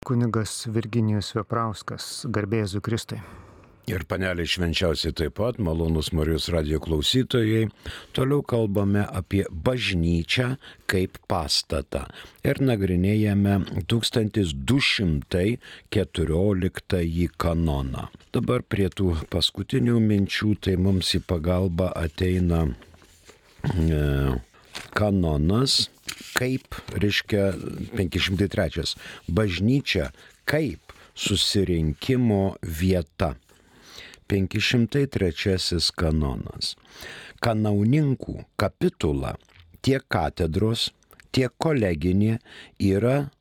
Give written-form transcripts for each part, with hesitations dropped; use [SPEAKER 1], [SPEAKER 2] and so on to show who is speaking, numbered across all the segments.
[SPEAKER 1] Kunigas Virginijus Veprauskas, garbė Jėzui Kristui.
[SPEAKER 2] Ir panelė švenčiausiai taip pat, malonus Marijos radijo klausytojai, toliau kalbame apie bažnyčią kaip pastatą ir nagrinėjame 1214 kanoną. Dabar prie tų paskutinių minčių, tai mums į pagalbą ateina kanonas, kaip, reiškia 503, bažnyčia kaip susirinkimo vieta. 503 kanonas. Kanauninkų kapitula, tiek katedros, tiek koleginė yra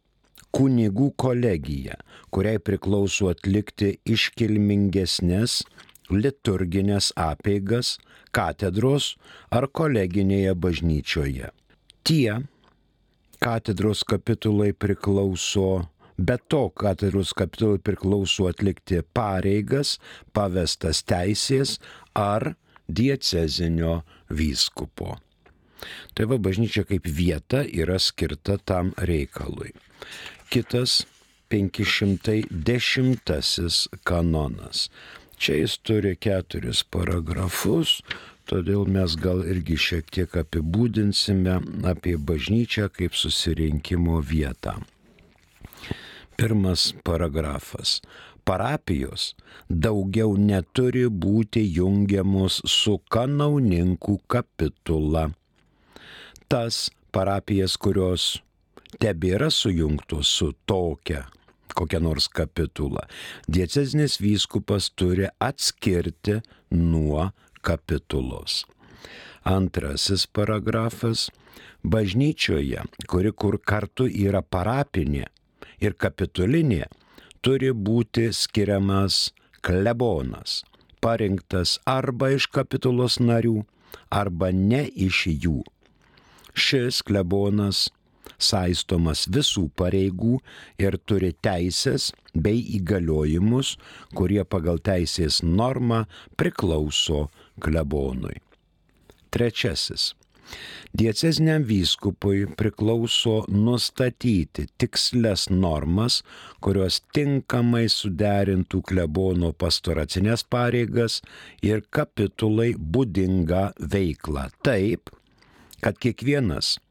[SPEAKER 2] kunigų kolegija, kuriai priklauso atlikti iškilmingesnės liturginės apeigas katedros ar koleginėje bažnyčioje. Tie katedros kapitulai priklauso, be to katedros kapitulai priklauso atlikti pareigas, pavestas teisės ar diecezinio vyskupo. Tai va, bažnyčia kaip vieta yra skirta tam reikalui. Kitas 510 kanonas. Čia jis turi 4 paragrafus, todėl mes gal irgi šiek tiek apibūdinsime apie bažnyčią kaip susirinkimo vietą. Pirmas paragrafas. Parapijos daugiau neturi būti jungiamos su kanauninkų kapitula. Tas parapijas, kurios tebėra sujungtos su tokia kokia nors kapitula, diecezinis vyskupas turi atskirti nuo kapitulos. Antrasis paragrafas. Bažnyčioje, kur kartu yra parapinė ir kapitulinė, turi būti skiriamas klebonas, parinktas arba iš kapitulos narių, arba ne iš jų. Šis klebonas saistomas visų pareigų ir turi teisės bei įgaliojimus, kurie pagal teisės normą priklauso klebonui. Trečiasis. Dieceziniam vyskupui priklauso nustatyti tikslias normas, kurios tinkamai suderintų klebono pastoracinės pareigas ir kapitulai būdingą veiklą taip, kad kiekvienas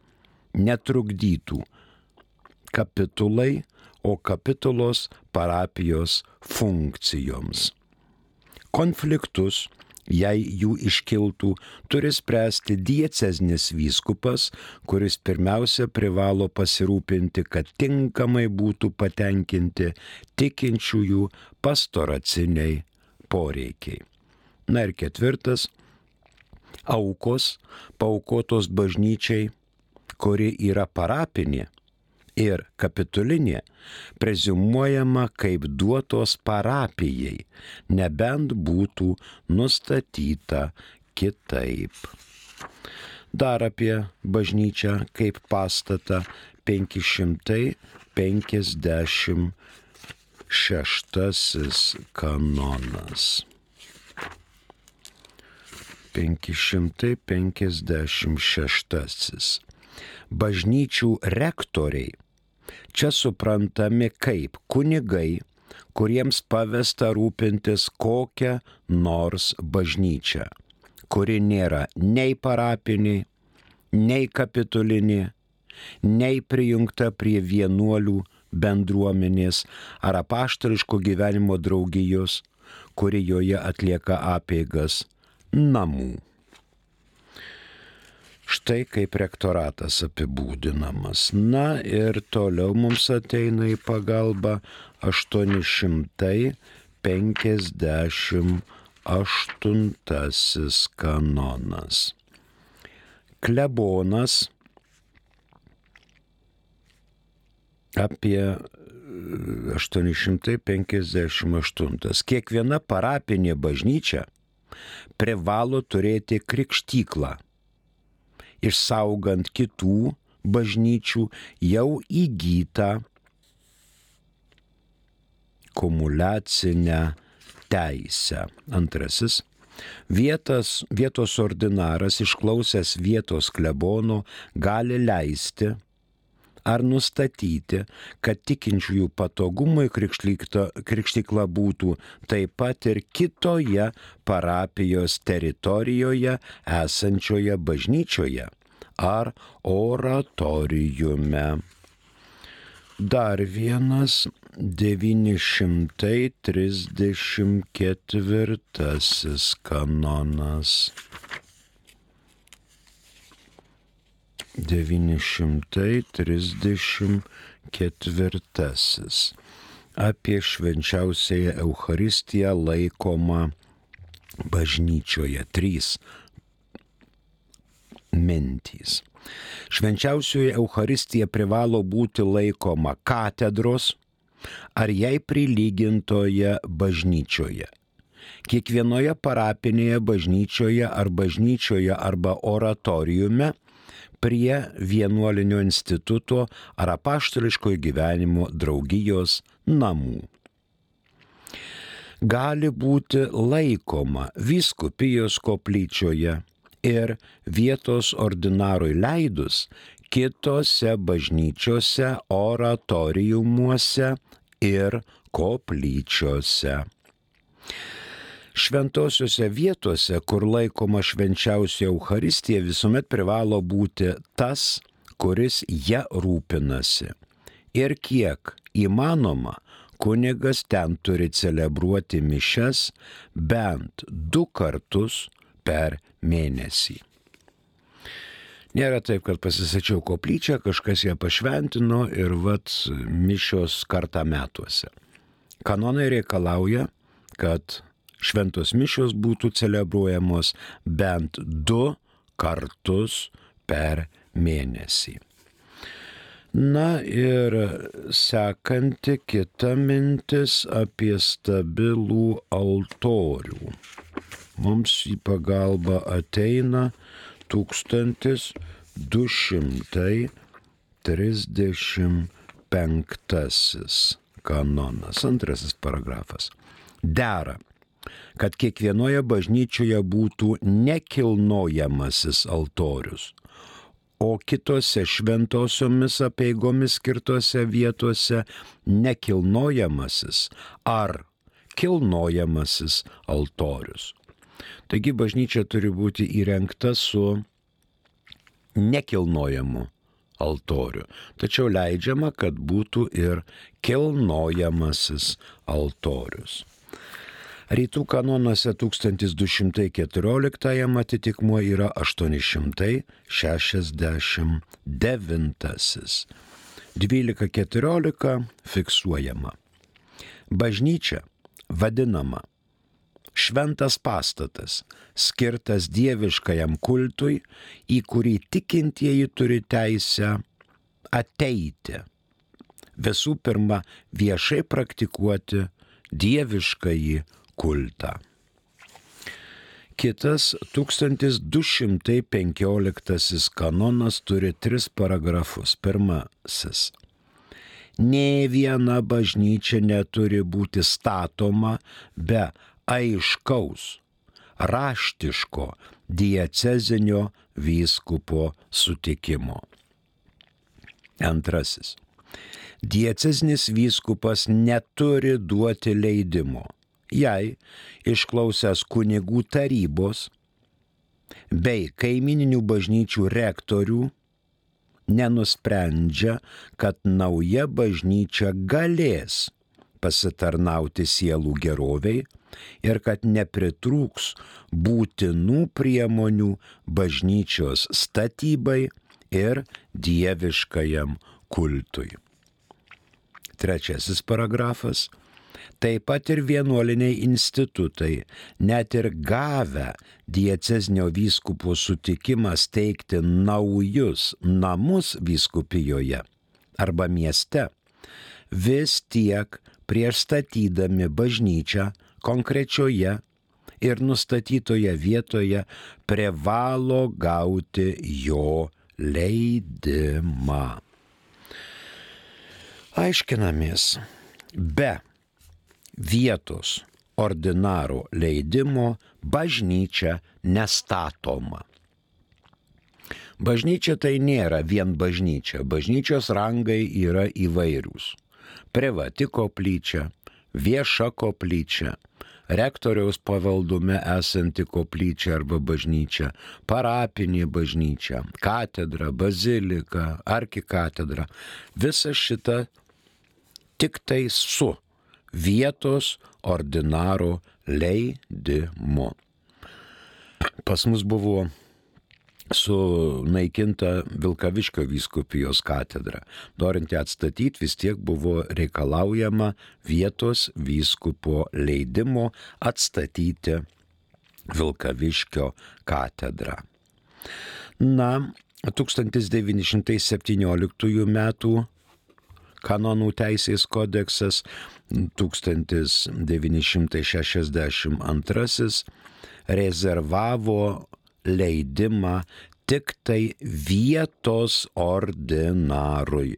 [SPEAKER 2] netrukdytų kapitulai, o kapitulos parapijos funkcijoms. Konfliktus, jei jų iškiltų, turi spręsti diecezinis vyskupas, kuris pirmiausia privalo pasirūpinti, kad tinkamai būtų patenkinti tikinčiųjų pastoraciniai poreikiai. Na ir ketvirtas. Aukos paaukotos bažnyčiai, kuri yra parapinė ir kapitulinė, preziumuojama kaip duotos parapijai, nebent būtų nustatyta kitaip. Dar apie bažnyčią kaip pastatą 556 kanonas. 556. Bažnyčių rektoriai čia suprantami kaip kunigai, kuriems pavesta rūpintis kokią nors bažnyčią, kuri nėra nei parapinė, nei kapitulinė, nei prijungta prie vienuolių bendruomenės ar apaštališko gyvenimo draugijos, kuri joje atlieka apeigas namų. Štai kaip rektoratas apibūdinamas. Na ir toliau mums ateina į pagalbą 858 kanonas. Klebonas apie 858. Kiekviena parapinė bažnyčia privalo turėti krikštyklą, išsaugant kitų bažnyčių jau įgytą kumuliacinę teisę. Antrasis. Vietos ordinaras, išklausęs vietos klebono, gali leisti ar nustatyti, kad tikinčiųjų patogumui krikštykla būtų taip pat ir kitoje parapijos teritorijoje esančioje bažnyčioje ar oratoriume. Dar vienas 934 kanonas. 934. Apie švenčiausiąją Eucharistiją laikomą bažnyčioje. 3 mintys. Švenčiausioji Eucharistija privalo būti laikoma katedros ar jai prilygintoje bažnyčioje. Kiekvienoje parapinėje bažnyčioje arba oratoriume prie vienuolinio instituto ar apaštališkojo gyvenimo draugijos namų. Gali būti laikoma vyskupijos koplyčioje ir vietos ordinarui leidus kitose bažnyčiose, oratoriumuose ir koplyčiose. Šventosiuose vietose, kur laikoma švenčiausia Eucharistija, visuomet privalo būti tas, kuris ją rūpinasi. Ir kiek įmanoma, kunigas ten turi celebruoti mišias bent 2 kartus per mėnesį. Nėra taip, kad pasisačiau koplyčią, kažkas ją pašventino ir mišios kartą metuose. Kanonai reikalauja, kad šventos mišios būtų celebruojamos bent 2 kartus per mėnesį. Na ir sekanti kita mintis apie stabilų altorių. Mums į pagalbą ateina 1235 kanonas, 2 paragrafas. Dera, kad kiekvienoje bažnyčioje būtų nekilnojamasis altorius, o kitose šventosiomis apeigomis skirtose vietose nekilnojamasis ar kilnojamasis altorius. Taigi bažnyčia turi būti įrengta su nekilnojamu altoriu, tačiau leidžiama, kad būtų ir kilnojamasis altorius. Rytų kanonuose 1214 atitikmuo yra 869. 12.14 fiksuojama. Bažnyčia vadinama šventas pastatas, skirtas dieviškajam kultui, į kurį tikintieji turi teisę ateiti. Visų pirma, viešai praktikuoti dieviškąjį kultą. Kitas 1215 kanonas turi 3 paragrafus. Pirmasis. Nė viena bažnyčia neturi būti statoma be aiškaus, raštiško diecezinio vyskupo sutikimo. Antrasis. Diecezinis vyskupas neturi duoti leidimo, jei išklausęs kunigų tarybos bei kaimininių bažnyčių rektorių nenusprendžia, kad nauja bažnyčia galės pasitarnauti sielų geroviai ir kad nepritrūks būtinų priemonių bažnyčios statybai ir dieviškajam kultui. 3 paragrafas. Taip pat ir vienuoliniai institutai, net ir gavę diecezinio vyskupo sutikimą steigti naujus namus vyskupijoje arba mieste, vis tiek prieš statydami bažnyčią konkrečioje ir nustatytoje vietoje privalo gauti jo leidimą. Aiškinamės, be vietos ordinaro leidimo bažnyčia nestatoma. Bažnyčia tai nėra vien bažnyčia. Bažnyčios rangai yra įvairūs. Privati koplyčia, vieša koplyčia, rektoriaus pavaldume esanti koplyčia arba bažnyčia, parapinė bažnyčia, katedra, bazilika, arkikatedra. Visa šita tik tai su vietos ordinaro leidimu. Pas mus buvo sunaikinta Vilkaviškio vyskupijos katedra. Norint ją atstatyti, vis tiek buvo reikalaujama vietos vyskupo leidimo atstatyti Vilkaviškio katedrą. Na, 1917 metų kanonų teisės kodeksas, 1962 rezervavo leidimą tik tai vietos ordinarui.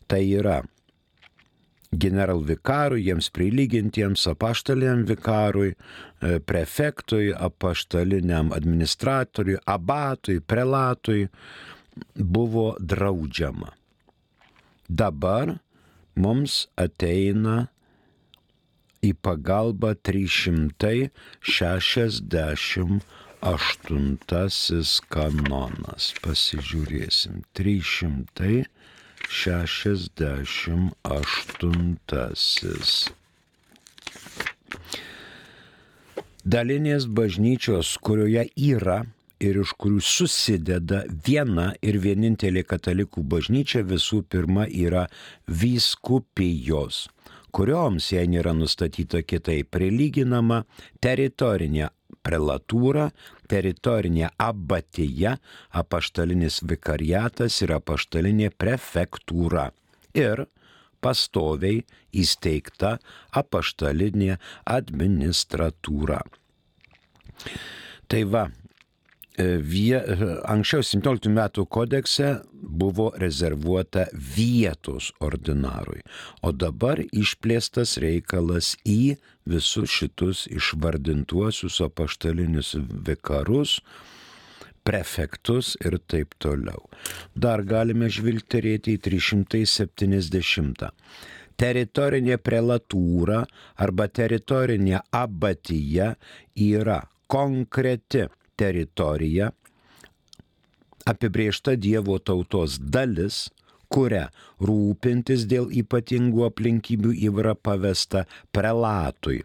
[SPEAKER 2] Tai yra generalvikarui, jiems prilygintiems apaštaliniam vikarui, prefektui, apaštaliniam administratoriui, abatui, prelatui buvo draudžiama. Dabar mums ateina į pagalbą 368 kanonas. Pasižiūrėsim. 368. Dalinės bažnyčios, kurioje yra ir iš kurių susideda viena ir vienintelė katalikų bažnyčia, visų pirma yra vyskupijos, kurioms, jei nėra nustatyta kitaip, prilyginama teritorinė prelatūra, teritorinė abatija, apaštalinis vikariatas ir apaštalinė prefektūra ir pastoviai įsteigta apaštalinė administratūra. Tai va, anksčiau 17 metų kodekse buvo rezervuota vietos ordinarui, o dabar išplėstas reikalas į visus šitus išvardintuosius apaštalinius vikarus, prefektus ir taip toliau. Dar galime žvilgterėti į 370. Teritorinė prelatūra arba teritorinė abatija yra konkreti teritorija, apibrėžta Dievo tautos dalis, kuria rūpintis dėl ypatingų aplinkybių yra pavesta prelatui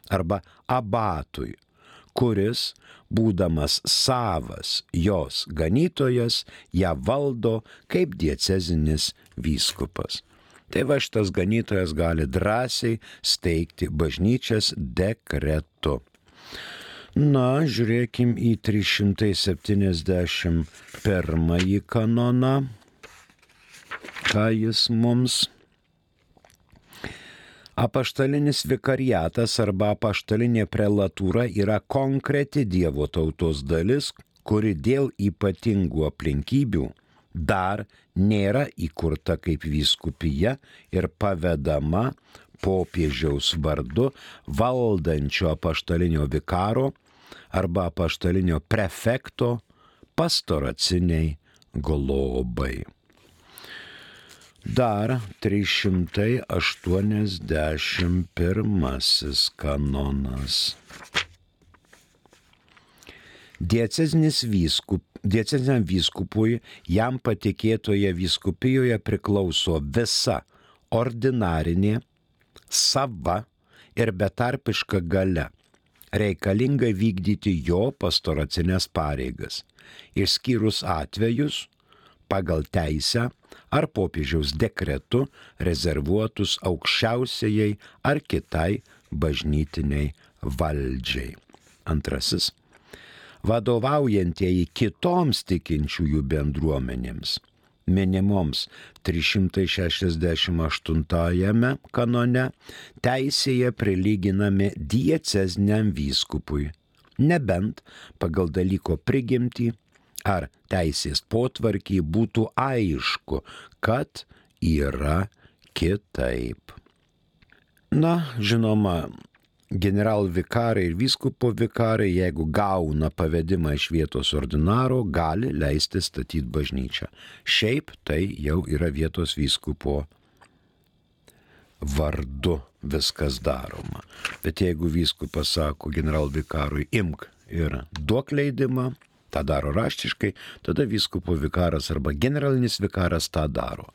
[SPEAKER 2] arba abatui, kuris, būdamas savas jos ganytojas, ją valdo kaip diecezinis vyskupas. Tai va, šitas ganytojas gali drąsiai steigti bažnyčias dekretu. Na, žiūrėkim į 371 kanoną, ką jis mums. Apaštalinis vikariatas arba apaštalinė prelatūra yra konkreti Dievo tautos dalis, kuri dėl ypatingų aplinkybių dar nėra įkurta kaip vyskupija ir pavedama popiežiaus vardu valdančio apaštalinio vikaro arba apaštalinio prefekto pastoraciniai globai. Dar 381 kanonas. Dieceziniam vyskupui jam patikėtoje vyskupijoje priklauso visa ordinarinė, sava ir betarpiška galia, reikalinga vykdyti jo pastoracinės pareigas, išskyrus atvejus pagal teisę ar popiežiaus dekretu rezervuotus aukščiausiai ar kitai bažnytiniai valdžiai. Antrasis. Vadovaujantieji kitoms tikinčiųjų bendruomenėms, minimoms 368 kanone, teisėje prilyginami dieceziniam vyskupui, nebent pagal dalyko prigimtį ar teisės potvarkį būtų aišku, kad yra kitaip. Na, žinoma, generalvikarai ir vyskupo vikarai, jeigu gauna pavedimą iš vietos ordinaro, gali leisti statyti bažnyčią. Šiaip tai jau yra vietos vyskupo vardu viskas daroma. Bet jeigu vyskupas sako generalvikarui imk ir duok leidimą, tą daro raštiškai, tada vyskupo vikaras arba generalinis vikaras tą daro.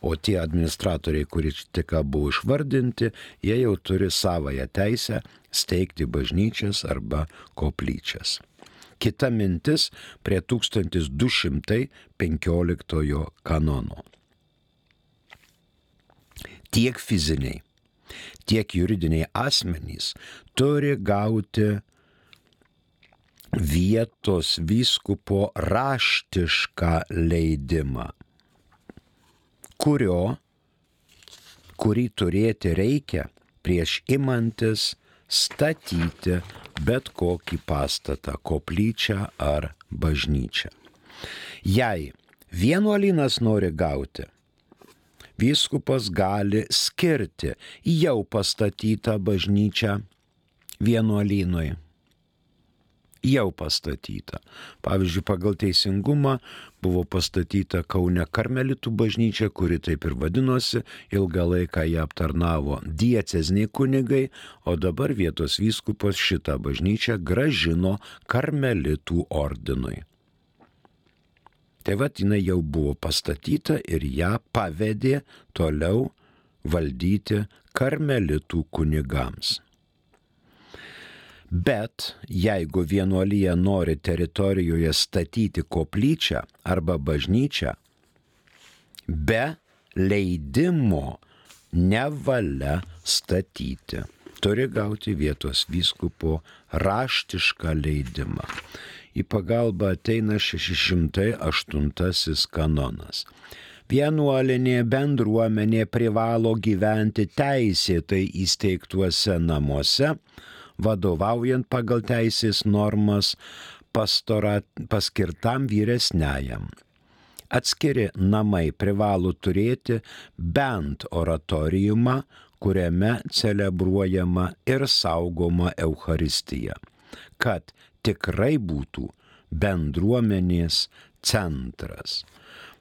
[SPEAKER 2] O tie administratoriai, kurie tik buvo išvardinti, jie jau turi savąją teisę steigti bažnyčias arba koplyčias. Kita mintis prie 1215 kanono. Tiek fiziniai, tiek juridiniai asmenys turi gauti vietos vyskupo raštišką leidimą, kurį turėti reikia prieš imantis statyti bet kokį pastatą, koplyčią ar bažnyčią. Jei vienuolynas nori gauti, vyskupas gali skirti jau pastatytą bažnyčią vienuolynui. Jau pastatyta. Pavyzdžiui, pagal teisingumą buvo pastatyta Kaune karmelitų bažnyčia, kuri taip ir vadinosi, ilgą laiką ją aptarnavo dieceziniai kunigai, o dabar vietos vyskupas šitą bažnyčią gražino karmelitų ordinui. Tai vat jinai jau buvo pastatyta ir ją pavedė toliau valdyti karmelitų kunigams. Bet jeigu vienuolija nori teritorijoje statyti koplyčią arba bažnyčią, be leidimo nevalia statyti. Turi gauti vietos vyskupo raštišką leidimą. Į pagalbą ateina 608 kanonas. Vienuolinė bendruomenė privalo gyventi teisėtai įsteigtuose namuose, vadovaujant pagal teisės normas paskirtam vyresniajam. Atskiri namai privalo turėti bent oratoriumą, kuriame celebruojama ir saugoma Eucharistija, kad tikrai būtų bendruomenės centras.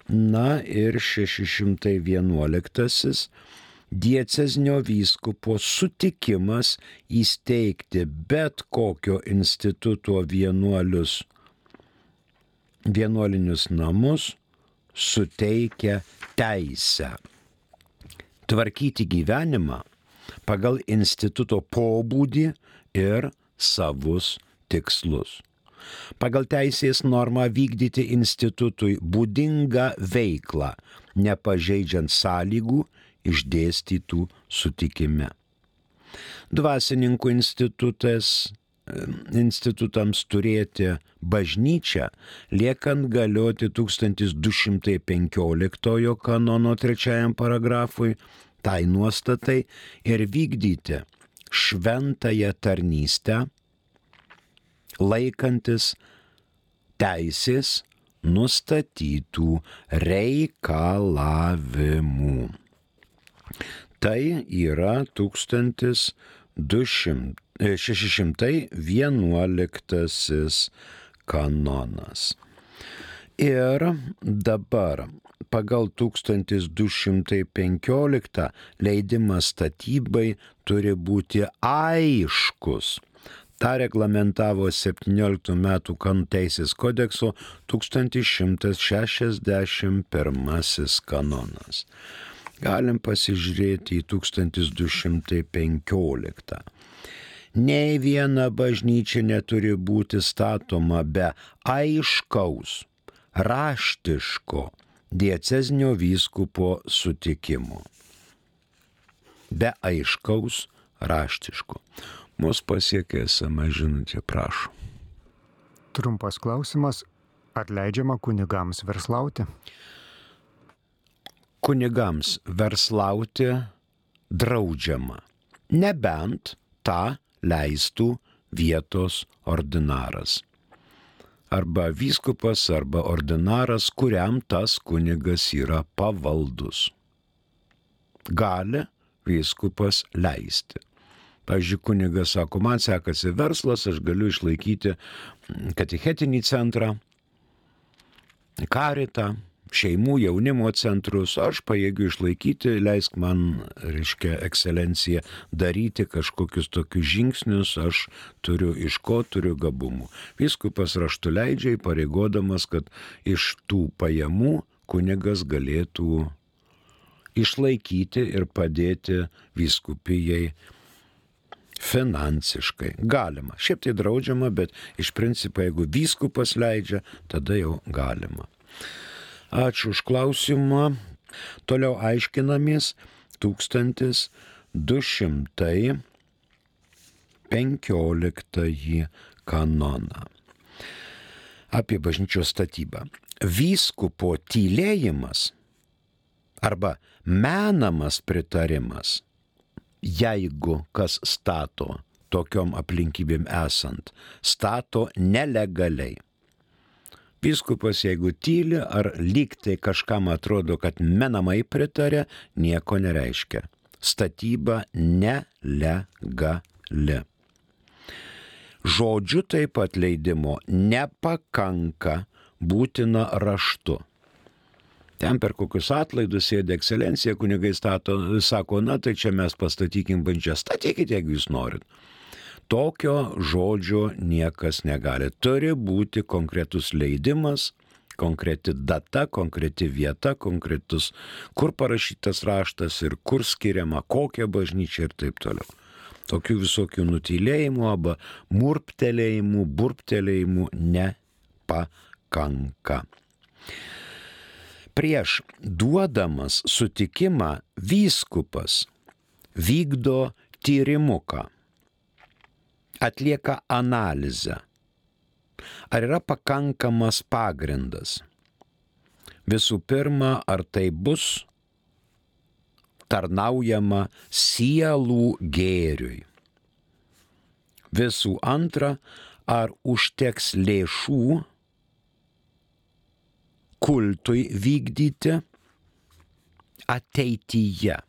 [SPEAKER 2] Na ir 611 diecezinio vyskupo sutikimas įsteigti bet kokio instituto vienuolinius namus suteikia teisę tvarkyti gyvenimą pagal instituto pobūdį ir savus tikslus. Pagal teisės normą vykdyti institutui būdingą veiklą, nepažeidžiant sąlygų išdėstytų sutikime. Dvasininkų institutams turėti bažnyčią, liekant galioti 1215 kanono 3 paragrafui, tai nuostatai ir vykdyti šventąją tarnystę, laikantis teisės nustatytų reikalavimų. Tai yra 1611 kanonas. Ir dabar pagal 1215 leidimas statybai turi būti aiškus. Ta reglamentavo 17 metų kanonų teisės kodekso 1161 kanonas. Galim pasižiūrėti į 1215. Nei viena bažnyčia neturi būti statoma be aiškaus, raštiško diecezinio vyskupo sutikimo. Be aiškaus, raštiško. Mus pasiekė SMS žinutė, prašau.
[SPEAKER 1] Trumpas klausimas. Ar leidžiama kunigams verslauti?
[SPEAKER 2] Kunigams verslauti draudžiama, nebent tą leistų vietos ordinaras. Arba vyskupas, arba ordinaras, kuriam tas kunigas yra pavaldus. Gali vyskupas leisti. Pavyzdžiui, kunigas sako, man sekasi verslas, aš galiu išlaikyti katechetinį centrą, karitą, šeimų jaunimo centrus, aš pajėgiu išlaikyti, leisk man, ekscelencija, daryti kažkokius tokius žingsnius, aš turiu iš ko, turiu gabumų. Vyskupas raštu leidžia, pareigodamas, kad iš tų pajamų kunigas galėtų išlaikyti ir padėti vyskupijai finansiškai. Galima. Šiaip tai draudžiama, bet iš principo, jeigu vyskupas leidžia, tada jau galima. Ačiū už klausimą. Toliau aiškinamės 1215 kanoną apie bažnyčios statybą. Vyskupo tylėjimas arba menamas pritarimas, jeigu kas stato tokiom aplinkybėm esant, stato nelegaliai. Vyskupas, jeigu tyli ar lygtai kažkam atrodo, kad menamai pritarė, nieko nereiškia. Statyba nelegali. Žodžiu taip pat leidimo nepakanka, būtina raštu. Ten per kokius atlaidus sėdė ekscelencija, kunigai sako, na tai čia mes pastatykim bažnyčią, statykite, jeigu jūs norit. Tokio žodžio niekas negali. Turi būti konkretus leidimas, konkreti data, konkreti vieta, konkretus, kur parašytas raštas ir kur skiriama, kokia bažnyčia ir taip toliau. Tokių visokių nutylėjimų arba murptelėjimų, burptelėjimų nepakanka. Prieš duodamas sutikimą vyskupas vykdo tyrimuką, atlieka analizę. Ar yra pakankamas pagrindas? Visų pirma, ar tai bus tarnaujama sielų gėriui? Visų antra, ar užteks lėšų kultui vykdyti ateityje?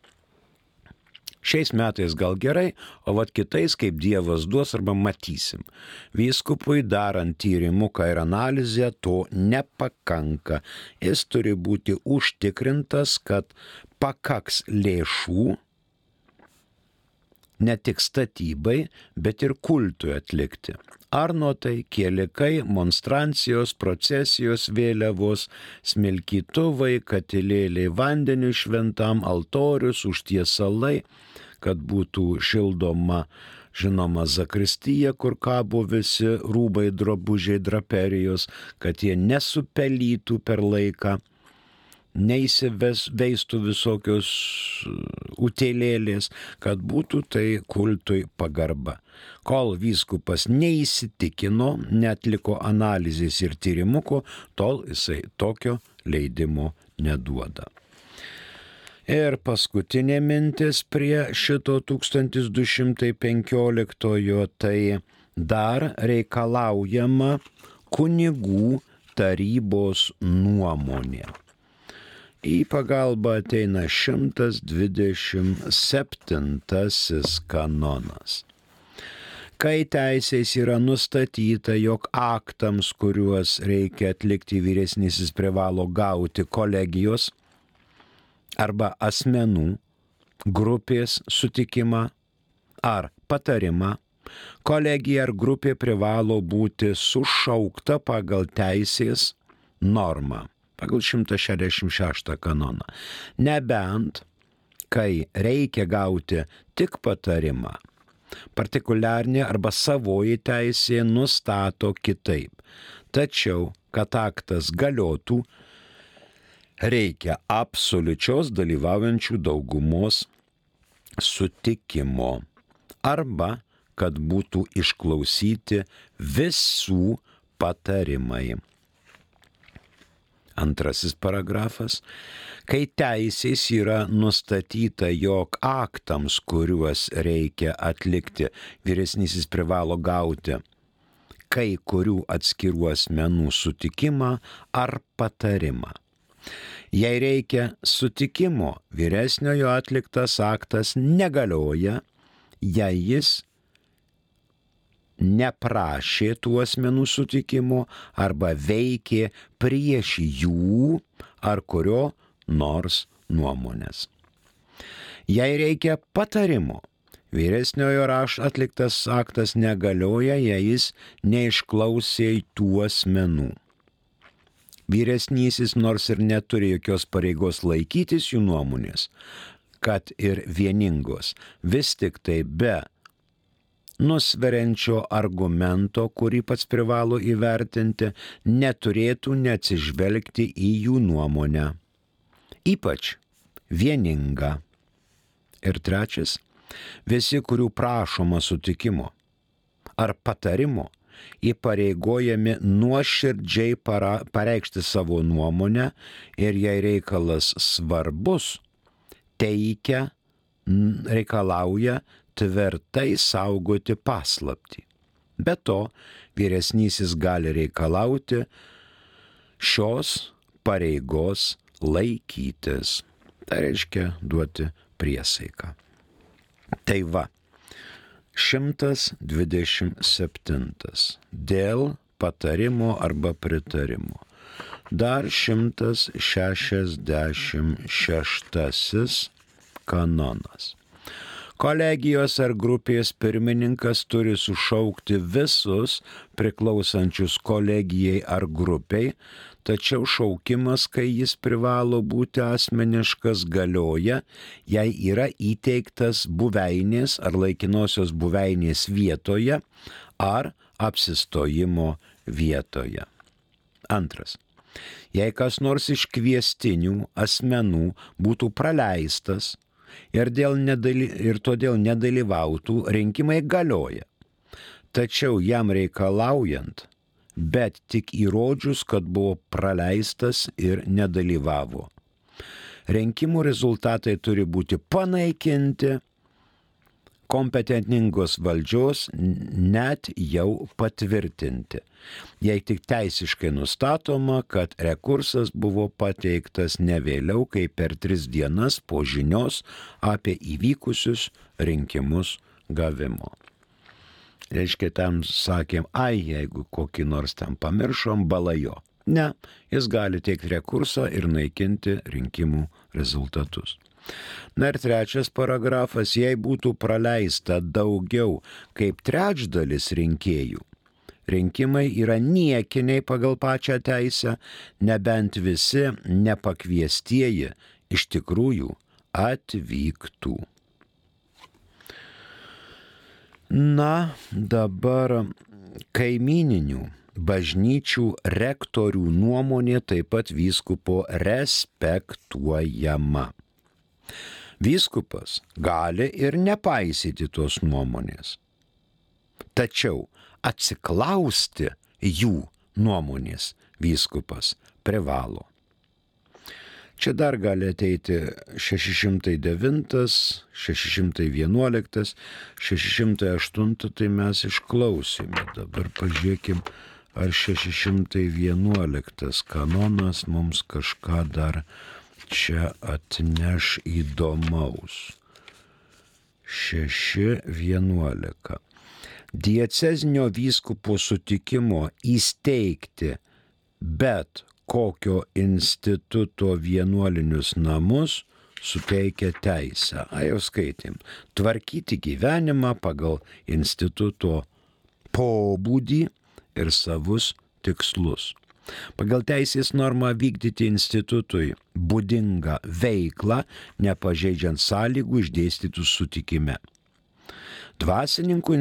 [SPEAKER 2] Šiais metais gal gerai, o vat kitais kaip Dievas duos arba matysim. Vyskupui darant tyrimuką ir analizę to nepakanka. Jis turi būti užtikrintas, kad pakaks lėšų ne tik statybai, bet ir kultui atlikti. Arnotai, kielikai, monstrancijos, procesijos, vėliavos, smilkytuvai, katilėliai vandeniu šventam, altorius, užtiesalai, kad būtų šildoma, žinoma, zakristija, kur kabo visi rūbai, drabužiai, draperijos, kad jie nesupelytų per laiką, neįsiveistų visokios utėlėlės, kad būtų tai kultui pagarba. Kol vyskupas neįsitikino, netliko analizės ir tyrimuko, tol jisai tokio leidimo neduoda. Ir paskutinė mintis prie šito 1215, tai dar reikalaujama kunigų tarybos nuomonė. Į pagalbą ateina 127 kanonas. Kai teisės yra nustatyta, jog aktams, kuriuos reikia atlikti vyresnysis privalo gauti kolegijos arba asmenų grupės sutikimą ar patarimą, kolegija ar grupė privalo būti sušaukta pagal teisės normą, pagal 166 kanoną. Nebent, kai reikia gauti tik patarimą, partikuliarnė arba savoji teisė nustato kitaip. Tačiau, kad aktas galiotų, reikia absoliučios dalyvaujančių daugumos sutikimo arba kad būtų išklausyti visų patarimai. Antrasis paragrafas. Kai teisės yra nustatyta, jog aktams, kuriuos reikia atlikti, vyresnysis privalo gauti kai kurių atskirų asmenų sutikimą ar patarimą. Jei reikia sutikimo, vyresniojo atliktas aktas negalioja jei jis neprašė tų asmenų sutikimo arba veikė prieš jų ar kurio nors nuomonės. Jei reikia patarimo, vyresniojo rašto atliktas aktas negalioja, jei jis neišklausė tų asmenų. Vyresnysis nors ir neturi jokios pareigos laikytis jų nuomonės, kad ir vieningos, vis tik tai be nusveriančio argumento, kurį pats privalo įvertinti, neturėtų neatsižvelgti į jų nuomonę, ypač vieningą. Ir trečias, visi, kurių prašoma sutikimo ar patarimo, įpareigojami nuoširdžiai pareikšti savo nuomonę ir jei reikalas svarbus, reikalauja tvirtai saugoti paslaptį. Be to, vyresnysis gali reikalauti šios pareigos laikytis. Tai reiškia duoti priesaiką. Tai va, 127. Dėl patarimo arba pritarimo. Dar 166 kanonas. Kolegijos ar grupės pirmininkas turi sušaukti visus priklausančius kolegijai ar grupiai, tačiau šaukimas, kai jis privalo būti asmeniškas, galioja, jei yra įteiktas buveinės ar laikinosios buveinės vietoje ar apsistojimo vietoje. Antras. Jei kas nors iš kviestinių asmenų būtų praleistas ir todėl nedalyvautų, rinkimai galioja. Tačiau jam reikalaujant, bet tik įrodžius, kad buvo praleistas ir nedalyvavo. Rinkimų rezultatai turi būti panaikinti kompetentingos valdžios, net jau patvirtinti, jei tik teisiškai nustatoma, kad rekursas buvo pateiktas ne vėliau kaip per 3 dienas po žinios apie įvykusius rinkimus gavimo. Reiškia, tam sakėm, jeigu kokį nors ten pamiršom, balajo. Ne, jis gali teikti rekursą ir naikinti rinkimų rezultatus. Na ir trečias paragrafas, jei būtų praleista daugiau kaip trečdalis rinkėjų, rinkimai yra niekiniai pagal pačią teisę, nebent visi nepakviestieji iš tikrųjų atvyktų. Na, dabar kaimyninių bažnyčių rektorių nuomonė taip pat vyskupo respektuojama. Vyskupas gali ir nepaisyti tos nuomonės, tačiau atsiklausti jų nuomonės vyskupas privalo. Čia dar gali ateiti 609, 611, 608, tai mes išklausėme. Dabar pažiūrėkim, ar 611 kanonas mums kažką dar čia atneš įdomaus. 6.11. Diecezinio vyskupo sutikimo įsteigti bet kokio instituto vienuolinius namus suteikia teisę. Jau skaitėm. Tvarkyti gyvenimą pagal instituto pobūdį ir savus tikslus. Pagal teisės normą vykdyti institutui būdingą veiklą, nepažeidžiant sąlygų išdėstytų sutikime. Dvasininkų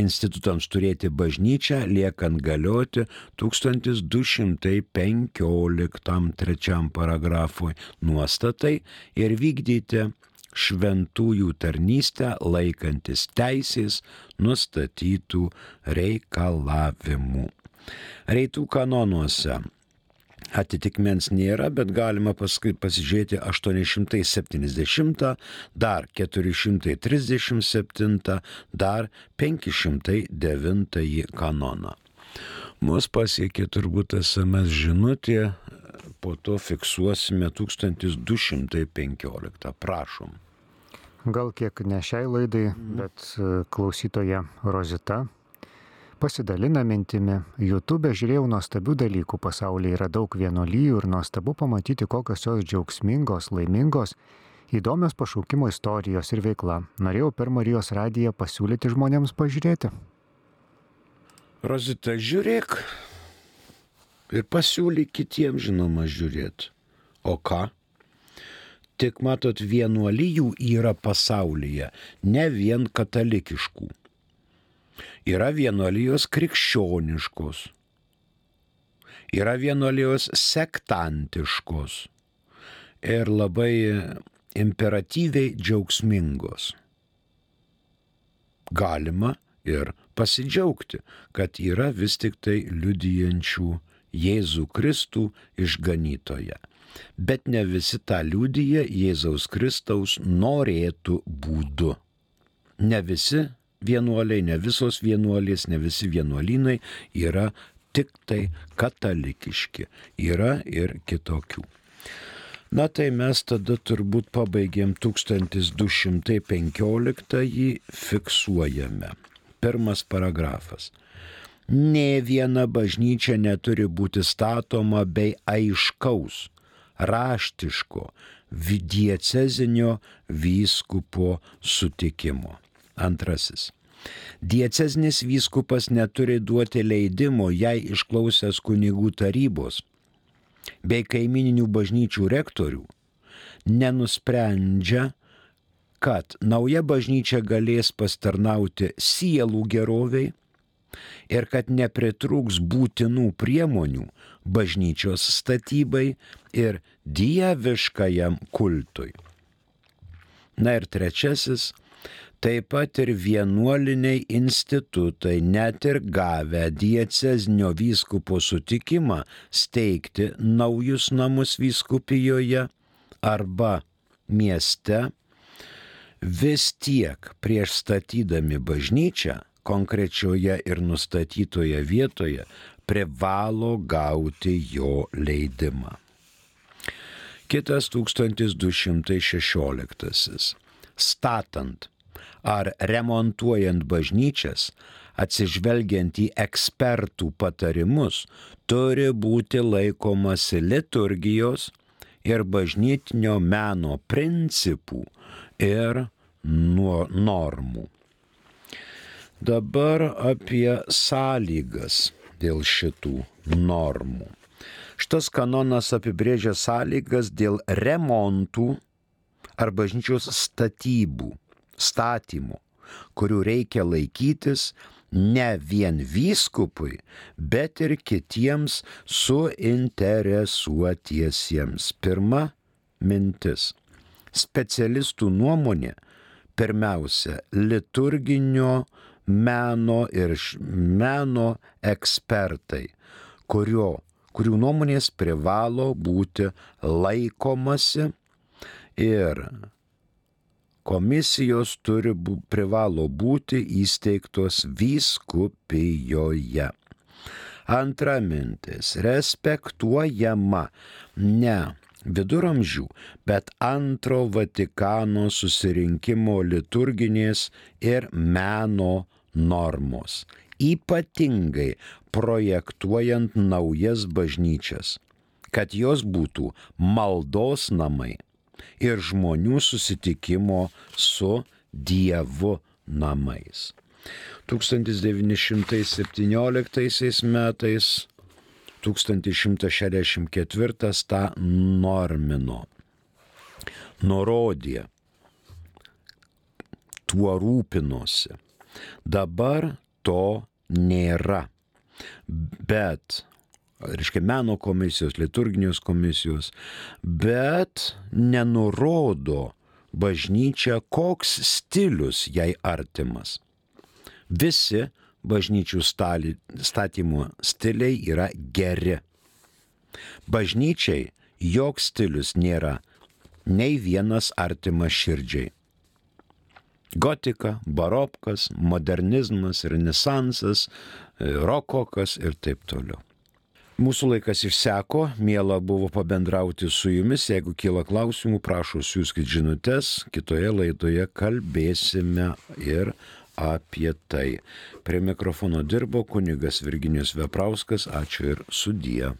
[SPEAKER 2] institutams turėti bažnyčią liekant galioti 1215 3 paragrafui nuostatai ir vykdyti šventųjų tarnystę laikantis teisės nustatytų reikalavimų. Reitų kanonuose atitikmens nėra, bet galima paskui pasižiūrėti 870, dar 437, dar 509 kanoną. Mus pasiekė turbūt SMS žinutė, po to fiksuosime 1215. Prašom.
[SPEAKER 1] Gal kiek ne šiai laidai, bet klausytoja Rozita pasidalina mintimi. YouTube žiūrėjau nuostabių dalykų, pasaulyje yra daug vienuolijų ir nuostabu pamatyti, kokios jos džiaugsmingos, laimingos, įdomios pašaukimo istorijos ir veikla. Norėjau per Marijos radiją pasiūlyti žmonėms pažiūrėti.
[SPEAKER 2] Rozita, žiūrėk ir pasiūlyk kitiems, žinoma, žiūrėti. O ką? Tik matot, vienuolijų yra pasaulyje, ne vien katalikiškų. Yra vienuolijos krikščioniškos, yra vienuolijos sektantiškos ir labai imperatyviai džiaugsmingos. Galima ir pasidžiaugti, kad yra vis tik tai liudijančių Jėzų Kristų išganytoją. Bet ne visi tą liudija Jėzaus Kristaus norėtų būdu. Ne visi vienuoliai, ne visos vienuolės, ne visi vienuolynai yra tik tai katalikiški. Yra ir kitokių. Na tai mes tada turbūt pabaigėm 1215-ąjį, fiksuojame. Pirmas paragrafas. Nė viena bažnyčia neturi būti statoma bei aiškaus, raštiško, diecezinio vyskupo sutikimo. Antrasis. Diecezinis vyskupas neturi duoti leidimo, jei išklausęs kunigų tarybos bei kaimininių bažnyčių rektorių nenusprendžia, kad nauja bažnyčia galės pastarnauti sielų geroviai ir kad nepritrūks būtinų priemonių bažnyčios statybai ir dieviškajam kultui. Na ir trečiasis. Taip pat ir vienuoliniai institutai, net ir gavę diecezinio vyskupo sutikimą steigti naujus namus vyskupijoje arba mieste, vis tiek prieš statydami bažnyčią konkrečioje ir nustatytoje vietoje privalo gauti jo leidimą. Kitas 1216. Statant ar remontuojant bažnyčias, atsižvelgiant į ekspertų patarimus, turi būti laikomasi liturgijos ir bažnytinio meno principų ir normų. Dabar apie sąlygas dėl šitų normų. Šitas kanonas apibrėžia sąlygas dėl remontų ar bažnyčios statymų, kurių reikia laikytis ne vien vyskupui, bet ir kitiems suinteresuotiesiems. Pirma mintis. Specialistų nuomonė, pirmiausia, liturginio meno ir meno ekspertai, kurių nuomonės privalo būti laikomasi ir komisijos privalo būti įsteigtos vyskupijoje. Antra mintis. Respektuojama ne viduramžių, bet antro Vatikano susirinkimo liturginės ir meno normos. Ypatingai projektuojant naujas bažnyčias, kad jos būtų maldos namai ir žmonių susitikimo su Dievu namais. 1917 metais 1164 tą normino, nurodė, tuo rūpinosi. Dabar to nėra, bet meno komisijos, liturginės komisijos, bet nenurodo bažnyčia, koks stilius jai artimas. Visi bažnyčių statymo stiliai yra geri. Bažnyčiai joks stilius nėra nei vienas artimas širdžiai. Gotika, barokas, modernizmas, renesansas, rokokas ir taip toliau. Mūsų laikas išseko, miela buvo pabendrauti su jumis. Jeigu kyla klausimų, prašau siųskit žinutes. Kitoje laidoje kalbėsime ir apie tai. Prie mikrofono dirbo kunigas Virginijus Veprauskas. Ačiū ir sudie.